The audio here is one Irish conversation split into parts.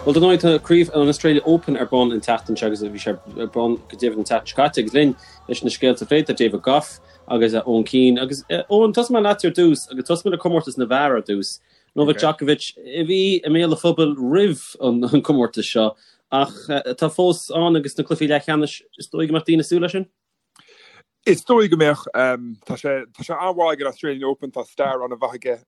Bhuel, dar ndóigh, tá craobh an Australia Open ar bun an tseachtain seo agus bhí sé ar bun go deimhin an tseachtain seo caite agus linn leis na scéalta a phlé tá David Gough agus Eoin Keane. Agus Eoin, tosóidh mé leat ar dtús agus tosóidh mé le comórtas na bhfear ar dtús. Novak Djokovic a bhí i mbéal an phobail roimh an comórtas seo ach atá fós ann agus na cluichí leathcheannais, is dóigh go mbeadh daoine ag súil leis sin? Is dóigh go mbeadh. Tá sé tá sé an-mhaith ag an Australian Open, tá stair an-mhaith aige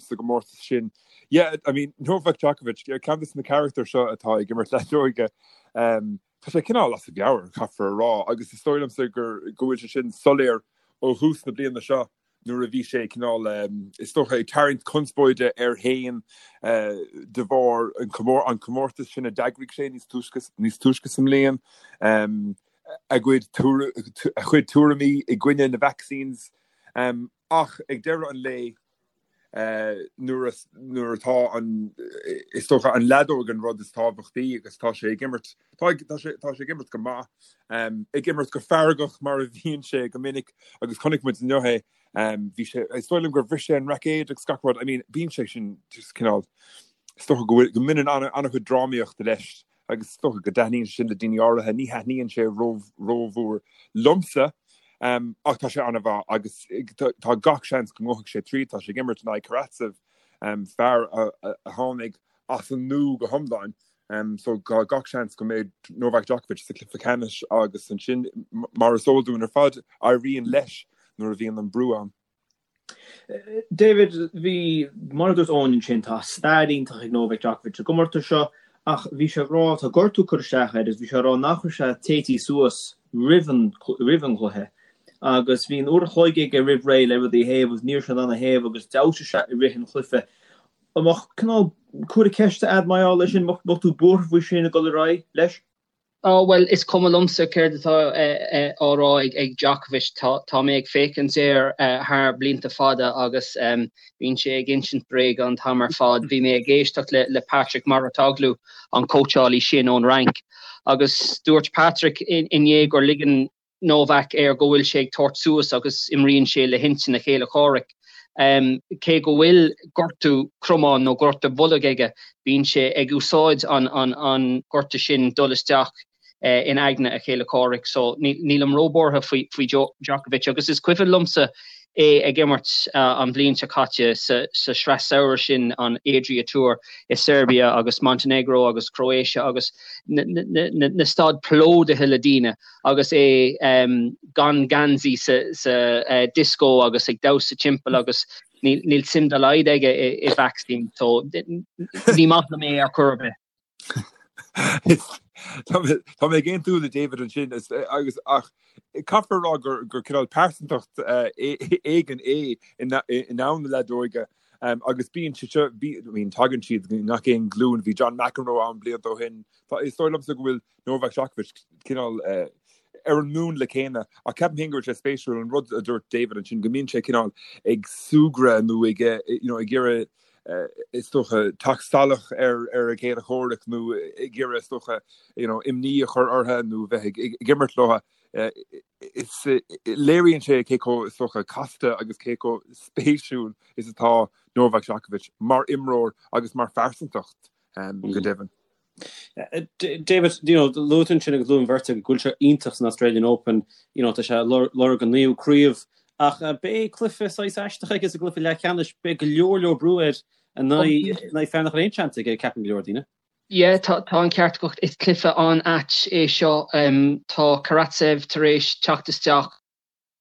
sa gcomórtas sin. Yeah, I mean, Novak Djokovic, ceann de na carachtair seo atá ag imirt leadóige, tá sé cineál as a mheabhair, caithfear a rá, agus is dóigh liomsa gur go bhfuil sé sin soiléir ó thús na bliana seo nuair a bhí sé cineál, is dócha, ag tarraingt conspóide air féin de bharr an comórtas sin a d'eagraigh sé níos túisce níos túisce sa mbliain. a gcuid a chuid tuairimí i gcoinne na vaccines ach ag deireadh an lae nuair nuair atá an is dócha an leadóg an rud is tábhachtaí agus tá sé ag imirt tá tá sé tá sé ag imirt go maith ag imirt go feargach mar a bhíonn sé go minic agus chonaic muid inniu é bhí sé is dóigh liom gur bhris sé an raicéad agus gach rud I mean bíonn sé sin just cineál is dócha go bhfuil go mbaineann an-chuid drámaíochta leis agus is dócha go dtaitníonn sé sin le daoine áirithe, ní thaitníonn sé rómhór liomsa, ach tá sé an-mhaith agus tá gach seans go ngabhfaidh sé tríd, tá sé ag imirt in aghaidh Karatsev, fear a tháinig as an nua go hiomlán, so tá gach seans go mbeidh Novak Djokovic sa chluiche ceannais agus ansin, mar is eol dúinn ar fad, éiríonn leis nuair a bhíonn an brú ann. David, bhí, mar a dúirt Eoin ansin, tá stair iontach ag Novak Djokovic sa gcomórtas seo ach bhí sé ag rá, tá gortú curtha isteach air agus bhí sé ag rá nach raibh sé téití suas roimh an, roimh an gcluiche agus bhí an uair a chloig aige roimh ré le rudaí a théamh agus ní raibh sé in ann a théamh agus d'fheabhsaigh sé i rith an chluiche. An mbeadh cineál comhartha ceiste a'd mar gheall air sin, mbeadh tú buartha faoi sin ag dul ar aghaidh leis? Á, bhuel, is cuma liomsa céard atá á rá ag Djokovic. Tá mé ag féachaint air thar blianta fada agus bíonn sé ag insint bréaga an t-am ar fad. Bhí mé ag éisteacht le Patrick Mouratoglou, an cóitseálaí sin ón Fhrainc, agus dúirt Patrick inné gur ligean Novak air go bhfuil sé ag tabhairt suas agus imríonn sé le hintinn a chéile comhraic. Cé go bhfuil gortú cromáin nó gortú bholg aige, bíonn sé ag úsáid an gortú sin dul isteach in aigne a chéile comhraic. So nílim róbhuartha faoi Djokovic agus is cuimhin liomsa é ag imirt an bhliain seo caite sa sraith samhraidh sin, an Adria Tour i Serbia agus Montenegro agus Croatia agus na staid plódaithe le daoine. agus é gan geansaí sa disco agus ag damhsa timpeall agus níl suim dá laghad aige i vacsaín so ní maith liom é ar chor ar bith. Tá mé ag aontú le David ansin agus ach caithfear a rá gur gur cineál pearsantacht éigin é i ndomhan na leadóige agus bíonn sé seo I mean tagann siad i ngach aon ghlúin bhí John McEnroe ann blianta ó shin Is dóigh liomsa go bhfuil Novak Djokovic cineál ar an múnla céanna ach ceapaim féin go bhfuil sé spéisiúil an rud a dúirt David ansin go mbíonn sé cineál ag súgradh nó ag you know ag iarraidh is dócha teacht salach ar ar a chéile comhraic nó ag iarraidh is dócha you know imní a chur orthu nó bheith ag ag imirt leo is léiríonn sé cé chomh is dócha casta agus cé chomh spéisiúil is atá Novak Djokovic mar imreoir agus mar phearsantacht go deimhin. David, you know, luaigh tú ansin agus luaigh an bheirt agaibh go bhfuil sé iontach san Australian Open, you know, tá sé ag lorg an naoú craobh, ach beidh cluiche saghas aisteach aige sa gcluiche leathcheannais, beidh go leor leor brú air in aghaidh fear nach bhfuil aon seans aige, ceapann go leor daoine. Yeah, tá tá an ceart agat, is cluiche an-ait é seo. Tá Karatsev tar éis teacht isteach.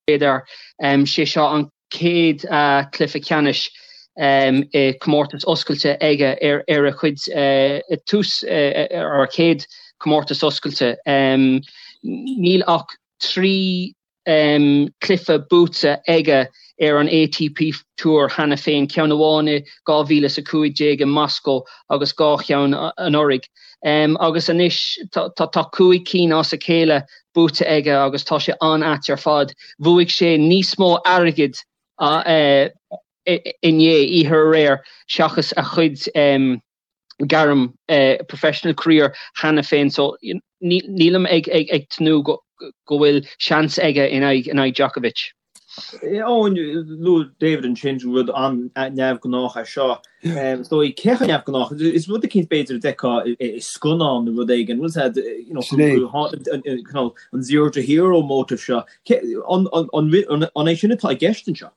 B'fhéidir. Sé seo an chéad chluiche ceannais i comórtas oscailte aige ar a chuid tús ar a chéad comórtas oscailte. Níl ach 3 chluiche buaite aige ar an ATP Tour cheana féin, ceann amháin i 2015 i Moscow agus 2 cheann anuraidh. Agus anois tá 5 cinn as a chéile buaite aige agus tá sé an-ait ar fad. Bhuaigh sé níos mó airgid inné, oíche aréir, seachas a chuid gairm professional career cheana féin so nílim ag tnúth go bhfuil seans aige in aghaidh Djokovic. Eoin, luaigh David ansin rud an-neamhghnách é seo. Is dóigh, cé chomh neamhghnách? Is rud eicínt b'fhéidir a d'fheicfeá i scannán nó rud éigin. Bhfuil a fhios agat, an zero to hero motive seo. An é sin atá i gceist anseo?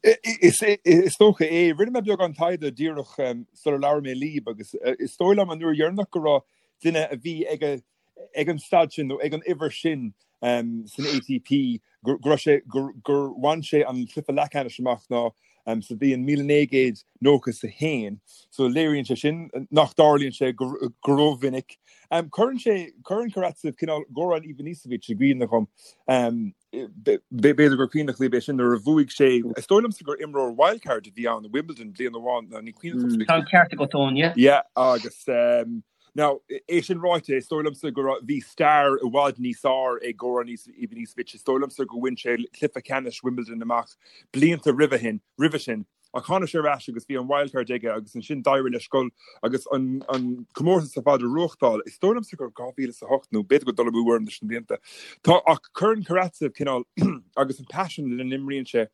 Is dócha é. Rinne mé beagán taighde díreach sular labhair mé libh agus is dóigh liom an uair dheireanach go raibh duine a bhí ag ag an staid sin nó ag an uimhir sin san ATP go raibh sé gur bhain sé an cluiche leathcheannais amach ná sa bhliain 1991. So léiríonn sé sin nach dtarlaíonn sé go rómhinic. Cuireann sé cuireann Karatsev cineál Goran Ivanisevic i gcuimhne dhom. B'fhéidir gur cuimhneach libh é sin nuair a bhuaigh sé, is dóigh liomsa gur imreoir wildcard a bhí ann i Wimbledon bliain amháin, nó ní cuimhin liom. Tá an ceart agat, Eoin, yeah. Yeah, agus now, é sin ráite, is dóigh liomsa go raibh, bhí stair i bhfad níos fearr ag Goran Ivanisevic, is dóigh liomsa go bhain sé cluiche ceannais Wimbledon amach blianta roimhe shin, roimhe sin. Ach tháinig sé ar ais agus bhí an wildcard aige agus ansin d'éirigh leis dul agus an comórtas ar fad a bhuachtáil. Is dóigh liomsa gur 2008 nó b'fhéidir go dul amú orm leis na blianta. Tá ach cuireann Karatsev cineál agus an paisean lena n-imríonn sé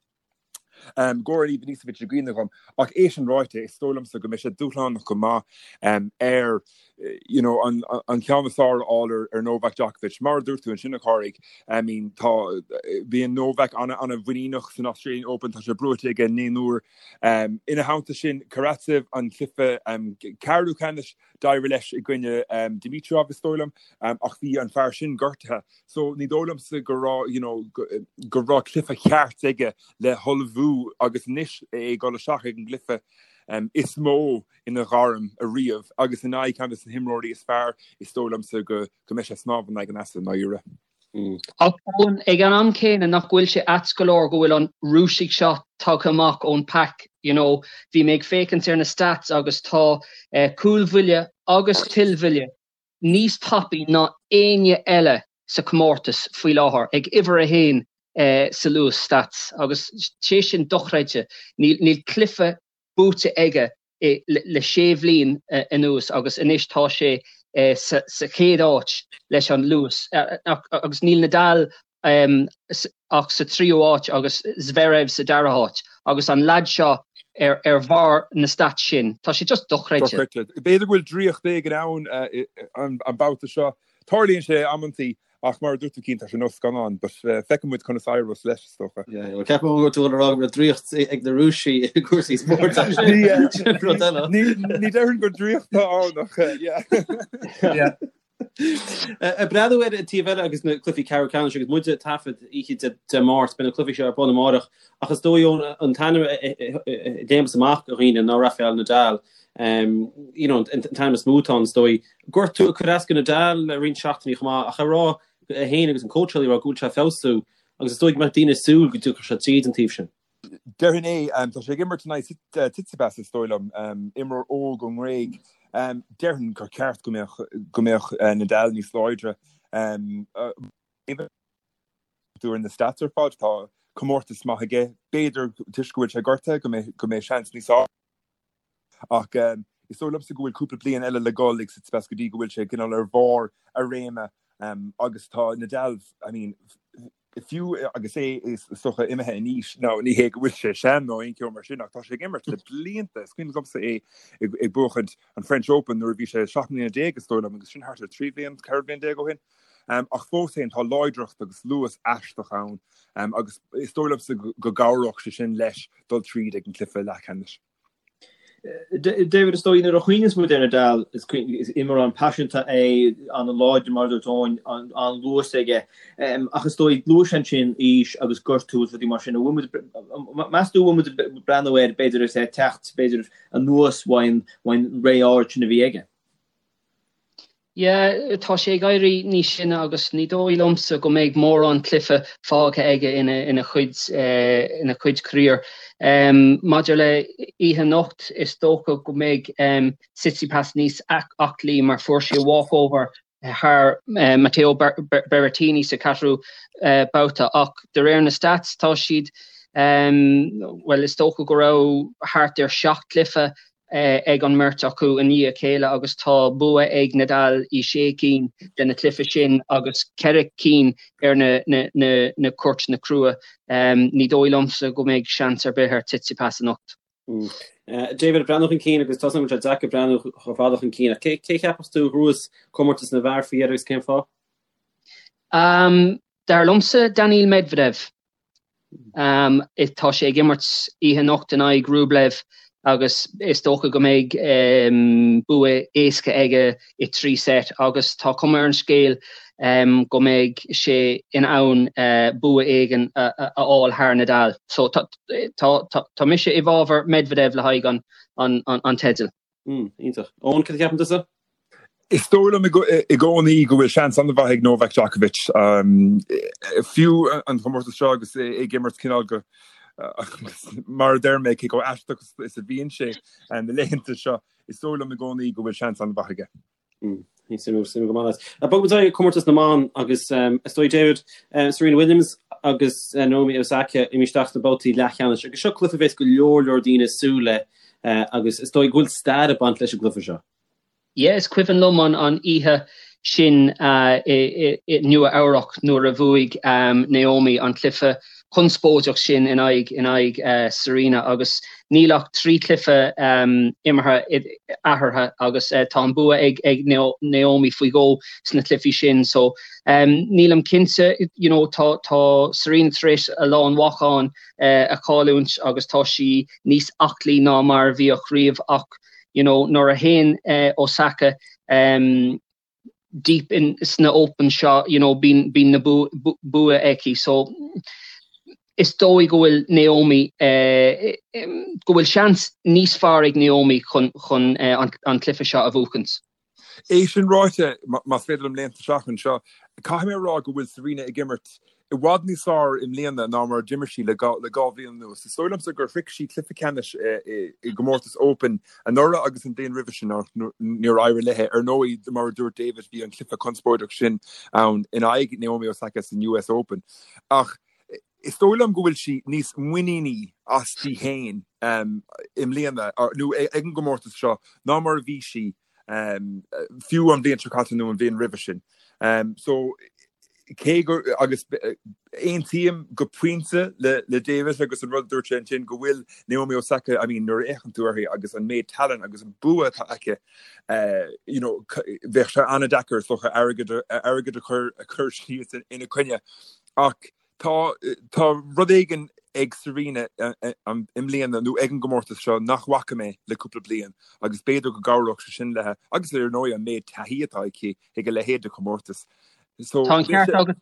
Goran Ivanisevic i gcuimhne dhom. Ach é sin ráite, is dóigh liomsa go mbeidh sé dúshlánach go maith air you know, an, an ceann is fearr a fháil ar, ar Novak Djokovic. Mar a dúirt tú ansin a Chárthaigh, I mean, tá, bíonn Novak ana, ana-mhuiníneach san Australian Open, tá sé buaite aige naoi n-uair. Um, ina theannta sin, Karatsev an cluiche um, ceathrú ceannais d'éirigh leis i gcoinne um, Dimitrov is dóigh liom, um, ach bhí an fear sin gortaithe. So ní dóigh liomsa go raibh, you know, go, go raibh cluiche ceart aige le hullmhú agus anois é ag dul isteach ag an gcluiche um, is mó ina ghairm ariamh agus in aghaidh ceann de na himreoirí is fearr, is dóigh liomsa go mbeidh sé ag snámh in aghaidh an easa i ndáiríre. Ach Eoin, ag an am céanna nach bhfuil sé ait go leor go bhfuil an Rúisigh seo tagtha amach ón pack, you know, bhí mé ag féachaint ar na stats agus tá cúlbhuille agus tuillbhuille níos tapaí ná éinne eile sa chomórtas faoi láthair, ag uimhir a haon sa luas stats agus sé sin dochreidte, níl cluiche buaite aige le sé bhliain anuas agus anois tá sé sa chéad áit leis an luas agus níl Nadal ach sa tríú háit agus Zverev sa dara háit agus an leaid seo ar bharr na stats sin. Tá sé just dochreidte. B'fhéidir go bhfuil draíocht éigin ann an babhta seo. Tarlaíonn sé amantaí Ach mar a dúirt tú Cian, tá sé ar nós scannán, but feicfidh muid conas a éireos leis, is dócha. Yeah, well ceapaim go bhfuil tú ag rá go bhfuil draíocht ag na Rúisigh i gcúrsaí spóirt ach sin rud eile. Ní déarfainn gur draíocht atá ann ach yeah. Yeah. Ag breathnú ar an taobh eile agus na cluichí ceathrú ceannais agus muid ag taifead oíche Dé Máirt, beidh na cluichí seo ar bun amárach ach is dóigh Eoin an t-ainm a léimeas amach do dhaoine ná Rafael Nadal. You know, an t-ainm is mó atá ann is dóigh. Gortú ag cur as do Nadal le roinnt seachtainí chomh maith ach ag rá é féin agus an cóitseálaí ag rá go bhfuil sé ag feabhsú agus is dóigh go mbeadh daoine ag súil go dtiocfadh sé tríd an taobh sin. Déarfainn é. Tá sé ag imirt in aghaidh Tsitsipas is dóigh liom, imreoir óg ón nGréig. Déarfainn gur ceart go mbeadh go mbeadh Nadal níos láidre. Ar na stats ar fad, tá comórtas maith aige. B'fhéidir toisc go bhfuil sé gortaithe go mbeidh go mbeidh seans níos Ach is dóigh liomsa go bhfuil cúpla bliain eile le dhul ag Tsitsipas go dtí go bhfuil sé cineál ar bharr a réime agus tá Nadal, I mean, fiú agus é is dócha imithe in aois, now ní hé go bhfuil sé sean nó aon cheo mar sin ach tá sé ag imirt le blianta. Is cuimhin liomsa é ag buachaint an French Open nuair a bhí sé 17 mbliana is dóigh liom agus sin thart ar 13 bhliain, 14 bhliain ó shin. Ach fós féin tá láidreacht agus luas aisteach ann agus is dóigh liomsa go gcabhródh sé sin leis dul tríd ag an gcluiche leathcheannais. David, is dóigh nuair a chuimhníonns muid ar Nadal, is imreoir an-phaiseanta é, an-láidir mar a dúirt Eoin, an-luas aige. Ach is dóigh, luaigh sé ansin aois agus gortú agus rudaí mar sin. An bhfuil muid, meas tú an bhfuil muid ag breathnú air, b'fhéidir, is é ag teacht, b'fhéidir, anuas uaidh an ré ard sin a bhí aige? Yeah, tá sé ag éirí níos sine agus ní dóigh liomsa go mbeidh mórán cluiche fágtha aige ina ina chuid ina chuid career. Maidir le oíche anocht, is dócha go mbeidh Tsitsipas níos aclaí mar fuair sé walkover thar Matteo Berrettini sa cheathrú babhta ach de réir na stats tá siad, bhuel is dócha go raibh thart ar sheacht gcluiche. ag an mbeirt acu i ndiaidh a chéile agus tá bua ag Nadal i sé cinn de na cluichí sin agus ceithre cinn ar na cúirteanna crua. Ní dóigh liomsa go mbeidh seans ar bith ar Tsitsipas anocht. David, breathnú chun cinn agus tá a fhios agam go bhfuil sé deacair breathnú chomh fada chun cinn ach cé a cheapas tú a ghnóthós comórtas na bhfear faoi dheireadh agus cén fáth? Dar liomsa Daniil Medvedev. Tá sé ag imirt oíche anocht in aghaidh Rublev agus is dócha go mbeidh bua éasca aige i 3 set agus tá cuma ar an scéal go mbeidh sé in ann bua éigin a fháil thar Nadal. So tá mise i bhfabhar Medvedev le haghaidh an teidil. Iontach. Eoin, cad a cheapann tusa? Is dóigh liom i gcónaí go bhfuil seans an-mhaith ag Novak Djokovic. Fiú an comórtas seo agus é ag imirt cineál go mar a deir mé cé chomh aisteach is a bhíonn sé na laethanta seo, is dóigh liom i gcónaí go bhfuil seans an-mhaith aige. Suimiúil, suimiúil go maith. Bogfaidh muid ar comórtas na mban agus is dóigh David, Serena Williams agus Naomi Osaka imithe isteach sna babhtaí leathcheannais agus seo cluiche a bheas go leor leor daoine ag súil le agus is dóigh go bhfuil stair ag baint leis an gcluiche seo. Yeah, is cuimhin liom an an oíche sin i Nua Eabhrac nuair a bhuaigh Naomi an cluiche conspóideach sin in aghaidh in aghaidh Serena agus níl ach 3 chluiche imeartha eatarthu agus tá an bua ag ag Naomi faoi dhó sna cluichí sin so nílim cinnte you know tá tá Serena tar éis a lán meáchan a chailliúint agus tá sí níos aclaí ná mar a bhíodh riamh ach you know nuair a théann Osaka deep in sna Open seo you know bíonn bíonn na bua aici so is dóigh go bhfuil Naomi go bhfuil seans níos fearr ag Naomi chun chun an an cluiche seo a bhuachaint. É sin ráite, más féidir liom léimt isteach anseo, caithfidh mé a rá go bhfuil Serena ag imirt i bhfad níos fearr i mbliana ná mar a d'imir sí le dhá bhliain anuas. Is dóigh liomsa gur shroich sí cluiche ceannais i gcomórtas Open anuraidh agus an bhliain roimhe sin ach níor éirigh léi. Ar ndóigh, mar a dúirt David, bhí an cluiche conspóideach sin ann in aghaidh Naomi Osaka san US Open. Ach is dóigh liom go bhfuil sí níos muiníní aisti féin i mbliana, nó ag an gcomórtas seo, ná mar a bhí sí fiú an bhliain seo caite nó an bhliain roimhe sin. So, cé go, agus aontaím go pointe le le David agus an rud a dúirt sé ansin go bhfuil Naomi Osaka, I mean, nuair a fhéachann tú uirthi agus an méid tallann agus an bua atá aici, you know, bheadh sé an-deacair is dócha airgead airgead a chur a chur síos ina coinne. Ach tá tá rud éigin ag Serena i mbliana nó ag an gcomórtas seo nach bhfaca mé le cúpla bliain agus b'fhéidir go gcabhródh sé sin léi agus ar ndóigh an méid taithí atá aici ag a leithéid de chomórtas. So Tá an ceart agat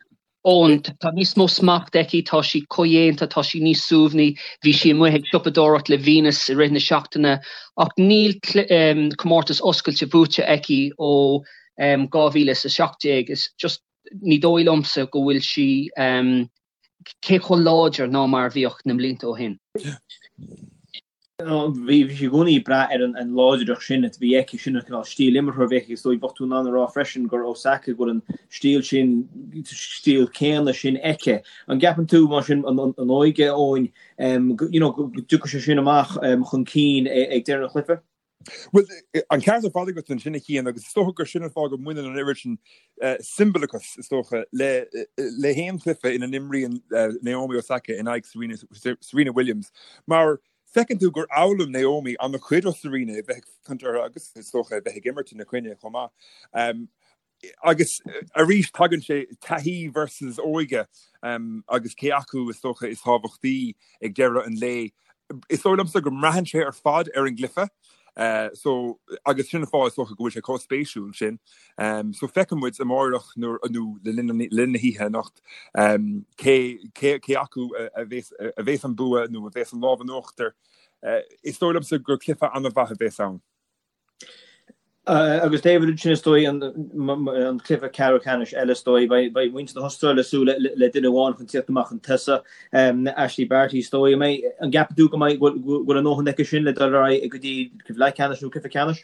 Eoin, tá níos mó smacht aici, tá sí comhdhéanta, tá sí níos suaimhní, bhí sí amuigh ag siopadóireacht le Venus i rith na seachtaine ach níl comórtas oscailte buaite aici ó 2017. Is just ní dóigh liomsa go bhfuil sí cé chomh láidir ná mar a bhíodh na mblianta ó shin. Bhí sí i gcónaí ag brath ar an láidreacht sin a bhí aici, sin an cineál stíl imeartha a bhí aici. Is dóigh, bheadh tú in ann a rá freisin gur Osaka go bhfuil an stíl sin, stíl céanna sin aici. An gceapann tú, mar sin, an óige, Eoin, you know, go dtiocfaidh sé sin amach chun cinn ag deireadh an chluiche? Bhuel, an ceart ar fad agat ansin, a Chian, agus is dócha gur sin an fáth go mbaineann an oiread sin siombalachas, is dócha, le le haon chluiche ina n-imríonn Naomi Osaka in aghaidh Serena, Serena Williams, mar feiceann tú gur fhoghlaim Naomi an-chuid ó Serena, a bheith ag féachaint uirthi agus is dócha a bheith ag imirt ina coinne chomh maith. Agus arís tagann sé taithí versus óige agus cé acu is dócha is tábhachtaí ag deireadh an lae. Is dóigh liomsa go mbraitheann sé ar fad ar an gcluiche so agus sin an fáth is dócha go bhfuil sé chomh spéisiúil sin. So feicfidh muid amáireach nó le linn na hoíche anocht cé cé acu a bheas a bheas an bua nó a bheas an lámh in uachtar. Is dóigh liomsa gur cluiche an-mhaith a bheas ann. Agus David, ansin is dóigh an cluiche ceathrú ceannais eile is dóigh, beidh muintir na hAstráile ag súil le duine amháin chun tíocht amach chun tosaigh, Ashleigh Barty is dóigh. An gceapann tú go mbeidh, go bhfuil a ndóthain aici sin le dul ar aghaidh go dtí cluiche leathcheannais nó cluiche ceannais?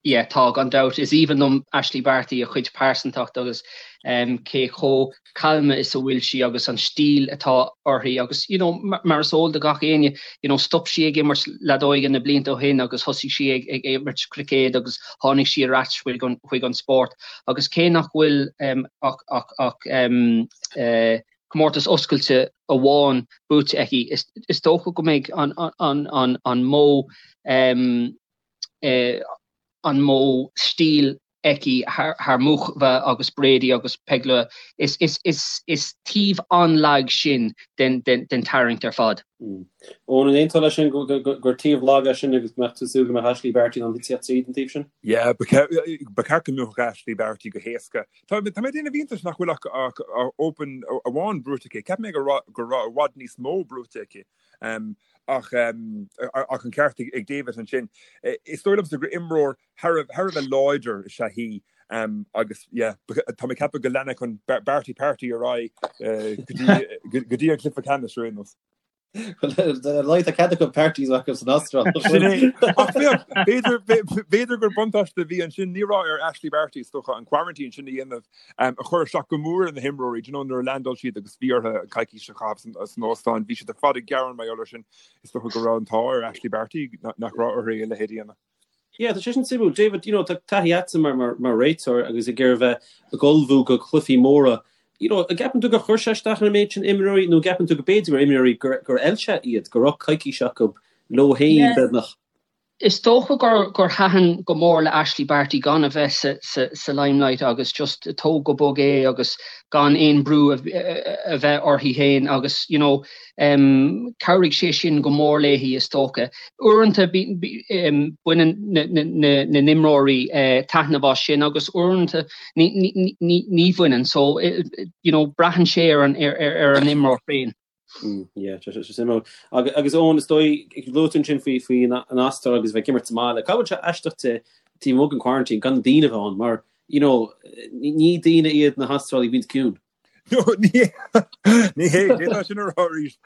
Yeah, tá, gan dabht. Is aoibhinn liom Ashleigh Barty, a cuid pearsantacht agus cé chomh calma is a bhfuil sí agus an stíl atá uirthi agus, you know, mar is eol do gach éinne, you know, stop sí ag imirt leadóige na blianta ó shin agus thosaigh sí ag ag imirt cruicéad agus tháinig sí ar ais chuig an chuig an spórt agus cé nach bhfuil ach ach ach comórtas oscailte amháin buaite aici, is is dócha go mbeidh an an an an modh an modh stíl aici thar Muchova agus Brady agus Pegula. Is taobh an-lag sin den tarraingt ar fad. Eoin, an aontófá leis sin gur taobh lag é sin agus go mbeadh tú ag súil go mbeadh Ashleigh Barty in ann tíocht tríd an taobh sin? Yeah, ba cheart go mbuafadh Ashleigh Barty go héasca. Tá mé ag déanamh iontais nach bhfuil ach Open amháin buaite aici. Cheap mé go raibh i bhfad níos mó buaite aici. Ach an ceart ag David ansin. Is dóigh liomsa gur imreoir thar a bheith láidir is ea í agus yeah, tá mé ag ceapadh go leanfaidh an Barty Party ar aghaidh go dtí an cluiche ceannais ar aon nós. Well, tá cead acu parties acu san Astráil. Sin é. Ach féach, b'fhéidir gur buntáiste a bhí ansin, ní raibh ar Ashleigh Barty is dócha an quarantine sin a dhéanamh a chuir isteach go mór ar na himreoirí, do you know, nuair a landáil siad agus bhí orthu coicís a chaitheamh san óstán, bhí siad ar fad ag gearán mar gheall air sin. Is dócha go raibh an t-ádh ar Ashleigh Barty nach raibh uirthi a leithéid a dhéanamh. Yeah, tá sé sin suimiúil. David, you know, tá taithí agatsa mar, mar, mar réiteoir agus ag iarraidh bheith ag ullmhú go cluichí móra. You know, an gceapann tú gur chuir sé isteach ar an méid sin imreoirí nó an gceapann tú go b'fhéidir mar imreoirí gur, gur fheil sé iad, go raibh coicís acu leo féin, Yeah. beagnach? Is dócha gur, gur thaitin go mór le Ashleigh Barty gan a bheith sa, sa, sa limelight agus just tóg go bog é agus gan aon brú a, a bheith uirthi féin agus, you know, Chabhraigh sé sin go mór léi, is dócha. Uaireanta baineann na n-imreoirí taitneamh as sin agus uaireanta ní bhaineann. So, you know, braitheann sé ar an imreoir féin. Yeah, tá sé suimiúil. Agus Eoin, is dóigh, luaigh tú ansin faoi faoi an Astráil agus bheith ag imirt sa mbaile. Cá bhfuil sé aisteach de taobh amuigh den quarantine gan na daoine a bheith ann mar, you know, ní daoine iad na hAstrálaigh a bhíonns ciúin. No, ní ní hé, d'fhéadfá sin a rá arís.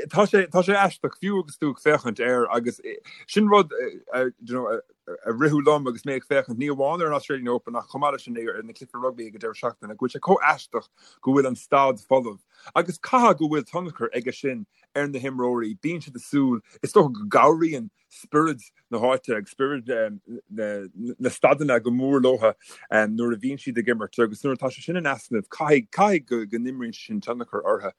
Tá sé tá sé aisteach fiú agus tú ag féachaint air agus sin rud a you know, a ritheadh liom agus mé ag féachaint ní amháin ar an Australian Open ach chomh maith leis sin ar na cluichí rugbaí ag an deireadh seachtaine go bhfuil sé chomh aisteach go bhfuil an staid folamh agus caithfidh go bhfuil tionchar aige sin ar na himreoirí. Bíonn siad ag súil, is dócha go gcabhraíonn spiorad na háite agus spiorad na staideanna go mór leo nuair a bhíonn siad ag imirt agus nuair atá sé sin in easnamh caithfidh caithfidh go go n-imríonn sé sin tionchar orthu.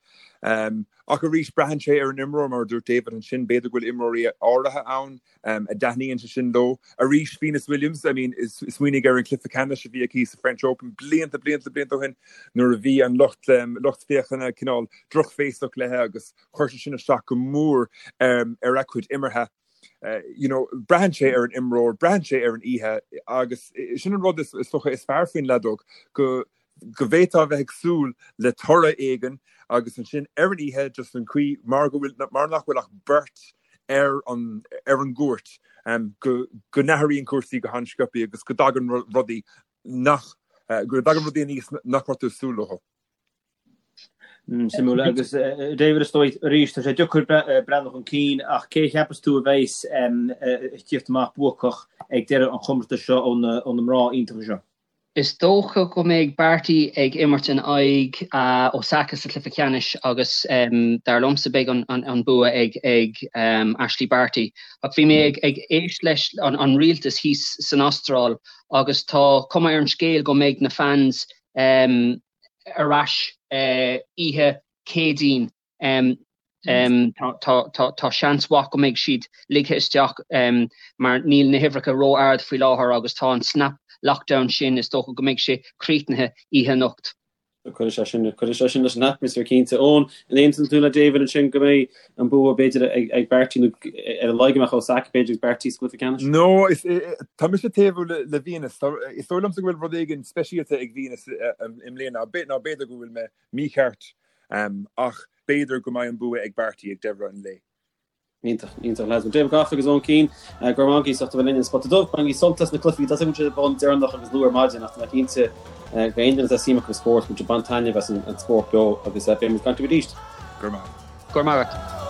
Ach arís braitheann sé ar an imreoir mar a dúirt David ansin, b'fhéidir go bhfuil imreoirí áirithe ann a dtaitníonn sé sin leo. Arís Venus Williams, I mean smaoinigh ar an cluiche ceannais a bhí aici sa French Open blianta blianta blianta ó shin nuair a bhí an lucht lucht féachana cineál drochbhéasach léi agus Chuir sé sin isteach go mór ar a cuid imeartha. You know, braitheann sé ar an imreoir, braitheann sé ar an oíche agus sin an rud is dócha is fearr faoin leadóg, go go bhféadfá a bheith ag súil le toradh éigin agus ansin ar an oíche just an chaoi mar go bhfuil mar nach bhfuil ach beirt ar an ar an gcúirt go go n-athraíonn cúrsaí go han-sciobtha agus go dtagann rudaí nach go dtagann rudaí aníos nach raibh tú ag súil leo. Suimiúil. Agus David, is dóigh arís, tá sé deacair breathnú chun cinn, ach cé a cheapas tú a bheas ag tíocht amach buacach ag deireadh an chomórtais seo ó na mná iontacha seo? Is dócha go mbeidh Barty ag imirt in aghaidh Osaka sa chluiche ceannais agus dar liomsa beidh an bua ag Ashleigh Barty. Ach bhí mé ag éist leis an rialtas thíos san Astráil agus tá cuma ar an scéal go mbeidh na fans ar ais oíche Céadaoin. Tá seans mhaith go mbeidh siad ligthe isteach mar níl na huimhreacha ró-ard faoi láthair agus tá an snap lockdown sin, is dócha go mbeidh sé críochnaithe oíche anocht. Cuirfidh sé sin, cuirfidh sé sin leis an atmaisféar cinnte. Eoin, an aontaíonn tú le David ansin go mbeidh an bua b'fhéidir ag Barty nó ar a laghad go mbeadh Osaka b'fhéidir agus Barty sa gcluiche ceannais? No, tá mise ag taobhú le Venus. Is dóigh liomsa go bhfuil rud éigin speisialta ag Venus i mbliana, nó b'fhéidir go bhfuil mé mícheart, ach b'fhéidir go mbeidh an bua ag Barty ag deireadh an lae. Iontach, iontach lads. David Gough agus Eoin Keane, go raibh maith agaibh as ucht a bheith linn ar An Spota Dubh. Bainigí sult as na cluichí, tá a fhios agam go bhfuil siad ar bun deireanach agus luath ar maidin ach tá mé cinnte go aon duine atá suim acu sa spórt, go bhfuil siad ag baint taitneamh as an spórt beo agus beidh muid ag caint libh arís. Go raibh maith. Go raibh maith agat.